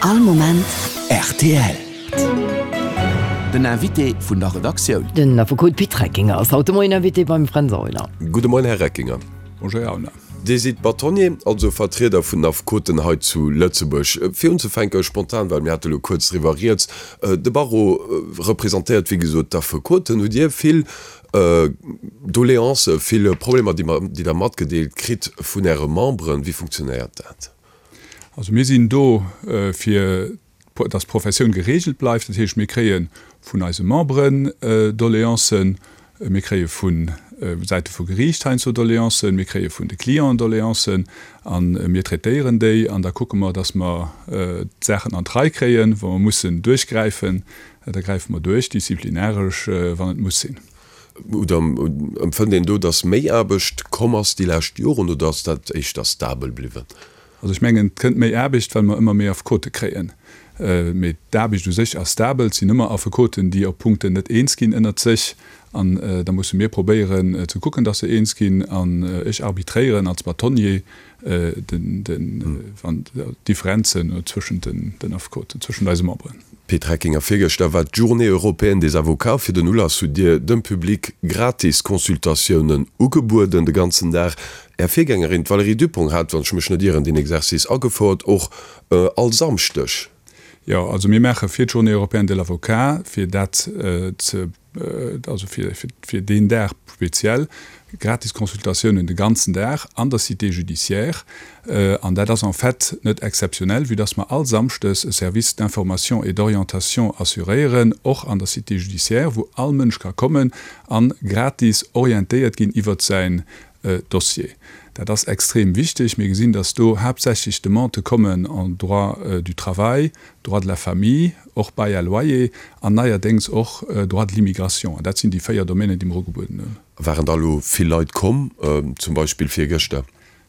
All Moment rtl. Den Invité vun der Redaktioun. Den Affekot Pit Reckinger ass haut de Moien Invité beim Fränz Aulner. Gudde Moien, Här Reckinger. Bonjour, Här Aulner. Dir sidd Bâtonnier, also Vertrieder vun den Affekoten hei zu Lëtzebuerg. Fir unzefänke spontan, well mir hate lo kuerz driwwer rieds, De Barreau representéiert wéi gesot d'Affekoten. Hutt Dir vill Doleancen, vill Problemer, déi Der matgedeelt kritt vun Äre Memberen? Wéi funktionéiert dat? Also mir sinn do fir dass d'Professioun geregelt bleift. Dat heescht, mir kréie vun eise Memberen Doleancen, mir kréie vu Säite vu Geriicht heiansdo Doleancen, mir kréie vun de Clienten Doleancen a mir traitéieren déi an da kucke mer, dass mer d'Saachen an d'Rei kréien. Wa mer mussen duerchgräifen, da gräife mer duerch, disziplinaresch, wann et muss sinn. Oder empfënnt een do, dass méi Aarbecht komm ass déi lescht Joren oder ass dat éischter stabel bliwwen? Also ech mengen, et kënnt méi Aarbecht, well mer ëmmer méi Affekote kréien. Mee d'Aarbecht u sech ass stabel. Et sinn ëmmer Affekoten, déi op Punkten net eens ginn ënnert sech. An da musse mir probéieren ze kucken, dass se eens ginn. An ech arbitréieren als Bâtonnier d'Differenzen zwëschent den Affekoten, zwëschent eise Memberen. Pit Reckinger, Virgëschter war d'Journée européenne des avocats. Fir den Ulass hutt Dir dem Public gratis Consultatiounen ugebueden, de ganzen Dag. Är Virgängerin, d'Valérie Dupong, hat, wann ech mech net ieren, deen Exercice agefouert, och all Samschdeg. Jo, also mir maache fir d'Journée européenne de l'avocat, fir dat ze, also fir, fir deen Dag speziell, gratis Consultatiounen de ganzen Dag an der Cité judiciaire. An dat ass en fait net exzeptionell, vue dass mer all Samschdes e Service d'information et d'orientation assuréieren, och an der Cité judiciaire, wou all Mënsch ka kommen a gratis orientéiert ginn iwwert säin Dossier. Dat ass extrem wichteg. Mir gesinn, dass do haaptsächlech Demandë kommen en droit du travail, droit de la famille, och bail à loyer an neierdéngs och droit de l'immigration. An dat sinn déi 4 Domänen, déi mer ugebueden hunn. Waren da elo vill Leit komm, zum Beispill virgëschter?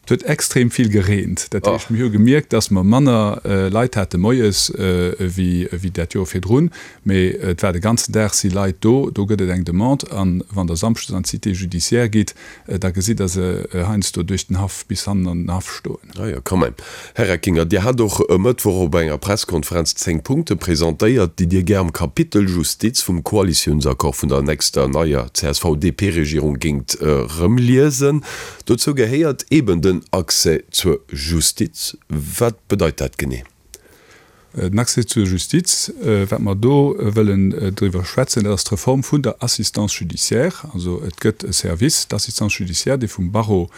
Et huet extrem vill gereent. Dat heescht, mir hu gemierkt, dass mer manner Leit hate moies ewéi dat Joer virdrun. Mee et war de ganzen Dag si Leit do. Do gëtt et eng Demande. A wann Der samschdes an d'Cité judiciaire gitt, da gesitt Der se heiansdo duerch den Haff bis hannen an den Haff stoen. Ah jo, quand même. Här Reckinger, Dir hat och e Mëttwoch op enger Presskonferenz 10 Punkte presentéiert, déi Dir gär am Kapitel Justiz vum Koalitiounsaccord vun der nächster neier CSV-DP-Regierung géingt erëmliesen. Dozou gehéiert eben den Accès zur Justiz. Wat bedeit dat genee? Den Accès zur Justiz, wat mer do wëllen driwwer schwätzen, dat ass d'Reform vun der Assistance judiciaire. Also et gëtt e Service d'assistance judiciaire, dee vum Barreau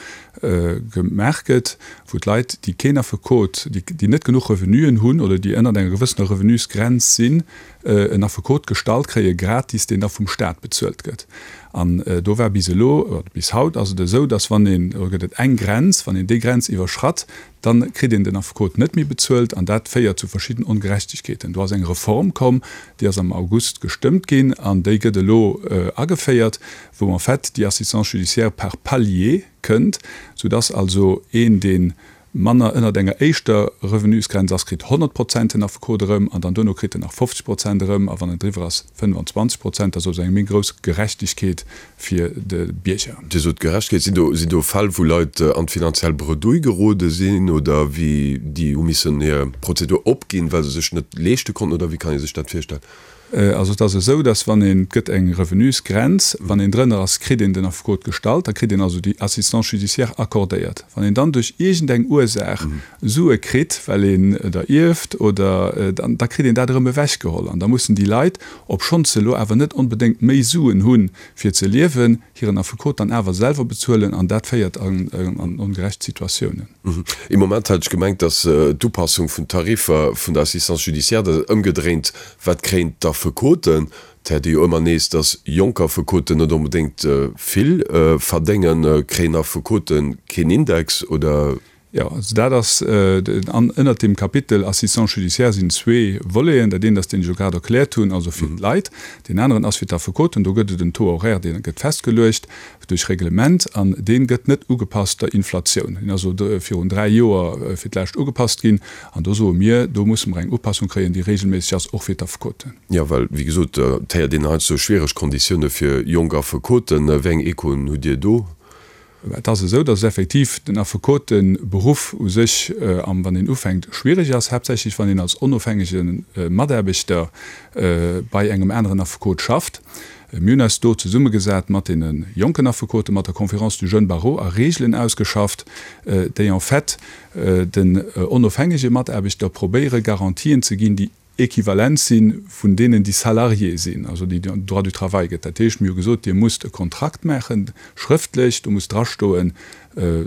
gemaach gëtt, wou d'Leit, déi keen Affekot, déi net genuch Revenuen hunn oder déi ënnert enger gewëssener Revenusgrenz sinn, en Affekot gestallt kréie gratis, deen da vum Stat bezuelt gëtt. An do war bis elo, oder bis haut ass et esou, dass wann een, do gëtt et eng Grenz, wann een déi Grenz iwwerschratt, Dann kritt een den Affekot net méi bezuelt an dat féiert zu verschidden Ongerechtegkeeten. Do ass eng Reform komm, déi ass am August gestëmmt ginn an déi gëtt elo ageféiert, wou en fait déi Assistance judiciaire par palier kënnt, soudass also een, dee manner ënnert enger éischter Revenusgrenz ass, kritt 100 Prozent den Affekot erëm an dann duerno kritt en nach 50 Prozent erëm a wann en driwwer ass 25 Prozent. Dat ass also eng méi grouss Gerechtegkeet fir de Bierger. Dir sot Gerechtegkeet. Sinn do, sinn do Fäll, wou Leit an d'finanziell Bredouille gerode sinn oder wéi déi hu missen hir Prozedur opginn, well se sech net leeschte konnten oder wéi kann ee sech dat virstellen? Also et ass esou, datt wann een, et gëtt eng Revenusgrenz, wann een drënner ass, kritt een den Affekot gestallt, da kritt een also déi Assistance judiciaire accordéiert. Wann een dann duerch iergendeng Ursaach Sue kritt, well een der ierft oder, dann da kritt een dat erëm ewechgeholl an da mussen déi Leit, obschonns se elo awer net onbedéngt méi Suen hunn, fir ze liewen, hiren Affekot dann awer selwer bezuelen an dat féiert an ongerecht Situatiounen. Ee Moment hat ech gemengt, datt d'Upassung vun Tariffer vun der Assistance judiciaire, dat ëmgedréint, wat kréien d'Affekoten? Et héiert ee jo ëmmer nees, datt jonk Affekoten net onbedéngt vill verdéngen. Kréien Affekote keen Index oder? Jo, also dat ass, an ënnert deem Kapitel Assistance judiciaire sinn zwee Voleten. Dat eent ass, deen ech elo grad erkläert hunn, also fir d'Leit. Deen aneren ass fir d'Affekoten. Do gëtt et en Taux horaire, dee gëtt festgeluecht duerch Reglement an dee gëtt net ugepasst der Inflatioun. Deen ass elo virun dräi Joer fir d'lescht ugepasst ginn. An do soe mir, do musse mer eng Upassung kréien, déi regelméisseg ass, och fir d'Affekoten. Jo, well, wéi gesot, et héiert een heiansdo schwiereg Konditioune fir jonk Affekoten. Wéi eng Echoen hutt Dir do? Et ass esou, datt effektiv den Affekoteberuff u sech, wann een ufänkt, schwiereg ass, haaptsächlech wann een als onofhängege Mataarbechter bei engem aneren Affekot schafft. Mir hunn eis do zesummegesat mat deene jonken Affekoten, mat der Conférence du jeune barreau a Reegelen ausgeschafft, déi en fait den onofhängege Mataarbechter probéiere Garantien ze ginn, déi equivalent si vun deenen, déi Salarié sinn, also déi den Droit du travail gëtt. Dat heescht, mir hu gesot, Dir musst e Kontrakt maachen, schrëftlech, do muss drastoen,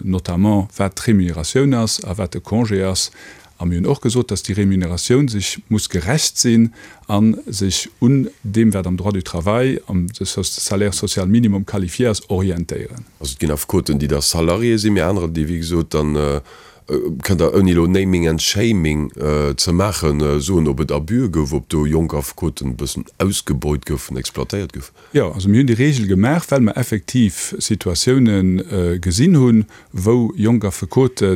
notamment wat d'Remuneratioun ass a wat de Congé ass. A mir hunn och gesot, dass déi Remuneratioun sech muss gerecht sinn a sech un deem, wat am Droit du travail, am Salaire social minimum qualifié ass, orientéieren. Also et ginn Affekoten, déi da Salarié sinn, mee anerer, déi wéi gesot dann Kënnt Der, ouni elo Naming and Shaming ze maachen, soen, ob et Abuse gouf, ob do jonk Affekoten e bëssen ausgebeut goufen, exploitéiert goufen? Jo, also mir hunn déi Regel gemaach, well mer effektiv Situatioune gesinn hunn, wou jonk Affekote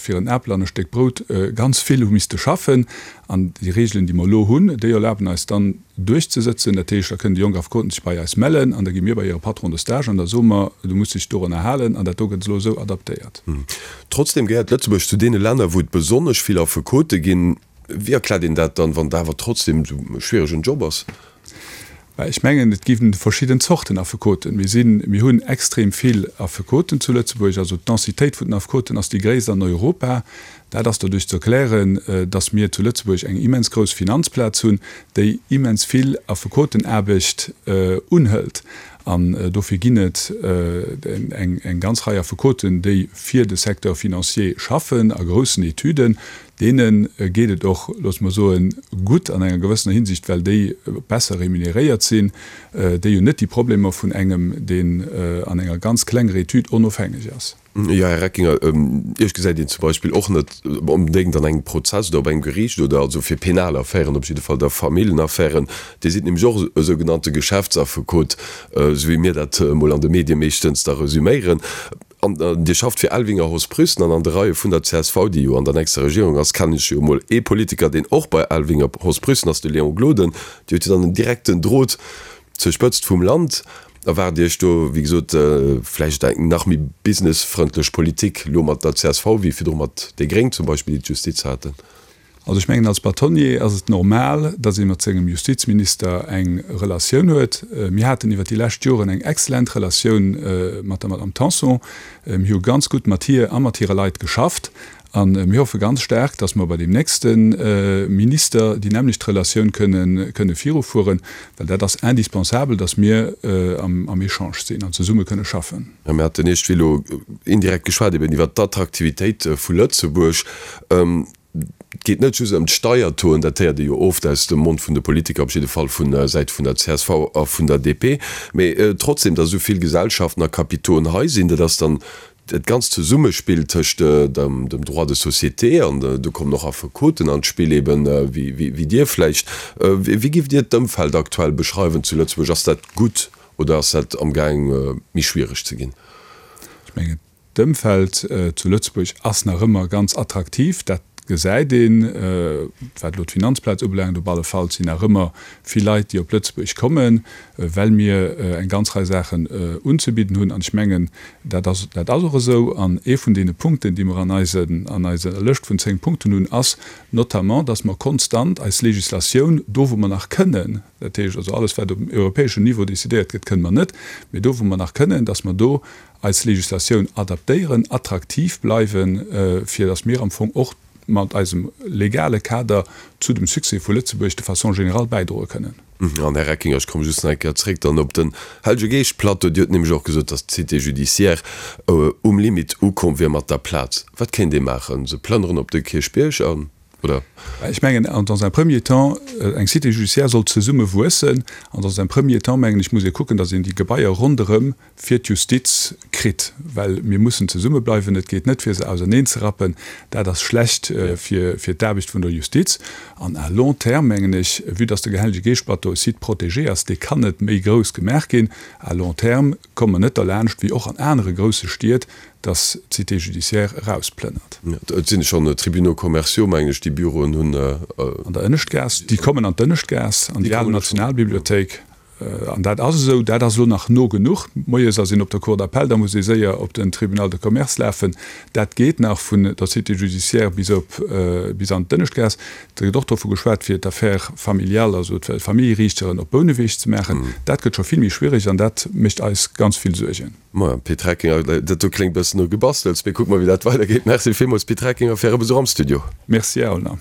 fir en Apel an e Stéck Brout ganz vill hu misste schaffen. An déi Regelen, déi mer elo hunn, déi erlaben eis dann, duerchzesëtzen. Dat heescht, da kënnen déi jonk Affekoten sech bei eis mellen an da gi mir bei hire Patron de stage an da soe mer, du muss dech dorunner halen an dat do gëtt elo esou adaptéiert. Trotzdem gehéiert Lëtzebuerg zu deene Länner, wou et besonnesch vill Affekote ginn. Wéi erkläert een dat dann, wann et awer trotzdem esou e schwieregen Job ass? Mä ech mengen, et gi verschidden Zorten Affekoten. Mir sinn, mir hunn extrem vill Affekoten zu Lëtzebuerg. Also d'Densitéit vun den Affekoten ass déi gréisst an Europa. Dat ass doduerch ze erklären, datt mir zu Lëtzebuerg eng immens grouss Finanzplaz hunn, déi immens vill Affekotenaarbecht unhëlt. An dofir ginn et eng ganz Rei Affekoten, déi fir de Secteur financier schaffen a groussen Etüden. Deene geet et och, loosse mer soen, gutt an enger gewëssener Hinsicht, well déi besser remuneréiert sinn. Déi hunn net déi Problemer vun engem, deen an enger ganz klenger Etüd onofhängeg ass. Jo, Här Reckinger, Iech gesäit een zum Beispill och net onbedéngt an engem Prozess oder op engem Geriicht oder also fir penal Affären, op jidde Fall da Familljenaffären. Dir sidd nämlech och e sougenannte Geschäftsaffekot, esou wéi mir dat emol an de Medie meeschtens da resüméieren. An Dir schafft fir Elvinger Hoss Prüssen an an de Reie vun der csv, déi jo an der nächster Regierung ass, kennen ech jo emol ee Politiker, deen och bei Elvinger Hoss Prüssen ass, de Léon Gloden. Dir hutt jo dann en direkten Drot Zur Spëtzt vum Land erwaart Iech do, wéi gesot, vläicht eng nach méi businessfrëndlech Politik elo mat der csv wéi virdru mat déi Gréng zum Beispill, déi d'Justiz haten. Also ech mengen, als Bâtonnier ass et normal, datt ee mat sengem Justizminister eng Relatioun huet. Mir haten iwwer déi lescht Joren eng excellent Relatioun mat der Madame Tanson. Mir hu ganz gutt mat hir a mat hire Leit geschafft. A mir hoffe ganz staark, dass mer bei deem nächste Minister déi nämmlecht Relatioun kënne virufueren, well dat ass indispensabel, dass mir am Echange sinn an zesumme kënne schaffen. Mir haten iergendwéi elo indirekt geschwat eben iwwert d'Attraktivitéit vu Lëtzebuerg. Et geet net just ëm d'Steiertoen, dat héiert ee jo oft aus dem Mond vun de Politiker, op jidde Fall vu Säit vun der csv a vun der DP, mee trotzdem, dass esou vill Gesellschaften a Kapitoen hei sinn, dat ass dann Dat ganzt Zesummespill tëscht dem Droit de société, an do kommen och Affekoten an d'Spill, eben wéi Dir vläicht, wéi giff Dir d'Ëmfeld aktuell beschreiwen zu Lëtzebuerg? Ass dat gutt oder ass dat amgaang méi schwiereg ze ginn? Ech mengen, d'Ëmfeld zu Lëtzebuerg ass nach ëmmer ganz attraktiv. Dat gesäit een, wat elo d'Finanzplaz ubelaangt. Op alle Fall sinn nach ëmmer vill Leit, déi op Lëtzebuerg kommen, well mir eng ganz Rei Saachen unzebidden hunn. An ech mengen, dat ass, dat ass och esou. An ee vun deene Punkten, déi mer an eisen, an eiser Lëscht vun 10 Punkten hunn, ass notamment, dass mer konstant eis Législatioun, do wou mer nach kënnen, dat heescht also alles wat op europäeschem Niveau décidéiert gëtt, kënnen mer net, mee do wou mer nach kënnen, dass mer do eis Législatioun adaptéieren, attraktiv bleiwen, fir dass mir am Fong och mat eisem legale Kader zu dem Succès vu Lëtzebuerg de façon générale bäidroe kënnen. An, Här Reckinger, ech komme just nach eng Kéier zréck dann op den Hellege Geescht-Plateau. Dir hutt nämlech och gesot, datt d'Cité judiciaire um Limit ukomm wier mat der Plaz. Wat kéint ee maachen? Se plënneren op de Kierchbierg an, oder? Ech mengen, dans un premier temps, eng Cité judiciaire soll zesumme wuessen. An dans un premier temps, mengen ech, muss ee kucken, datt een déi Gebaier ronderëm fir d'Justiz kritt, well mir mussen zesummebleiwen. Et geet net, fir se auserneenzerappen. Dat ass schlecht fir d'Aarbecht vun der Justiz. An à long terme, mengen ech, vue dass de Hellege Geescht-Plateau e Site protégé ass, dee kann net méi grouss gemaach ginn, à long terme komme mer net derlaanscht, wéi och an anere grousse Stied, dass d'Cité judiciaire erausplënnert. Et sinn schonn Tribunaux commerciaux, mengen ech, déi Büroen hunn. An der Ënneschtgaass. Déi kommen an d'Ënneschtgaass, an déi al Nationalbibliothéik. An dat ass esou, dat ass elo nach no genuch. Moies ass een op der Cour d'appel, da muss ee séier op den Tribunal de commerce lafen. Dat geet nach vun der Cité judiciaire bis op, bis an d'Ënneschtgaass. Et gëtt och dovu geschwat, fir d'Affaires familiales, also d'Familljeriichteren op Bouneweg ze maachen. Dat gëtt scho vill méi schwierig an dat mécht eis ganz vill Suergen. Maja, Pit Reckinger, dat do kléngt bëssen no Gebastels, mee kucke mer, wéi dat weidergeet. Merci villmools, Pit Reckinger, fir Äre Besuch am Studio. Merci, Här Aulner.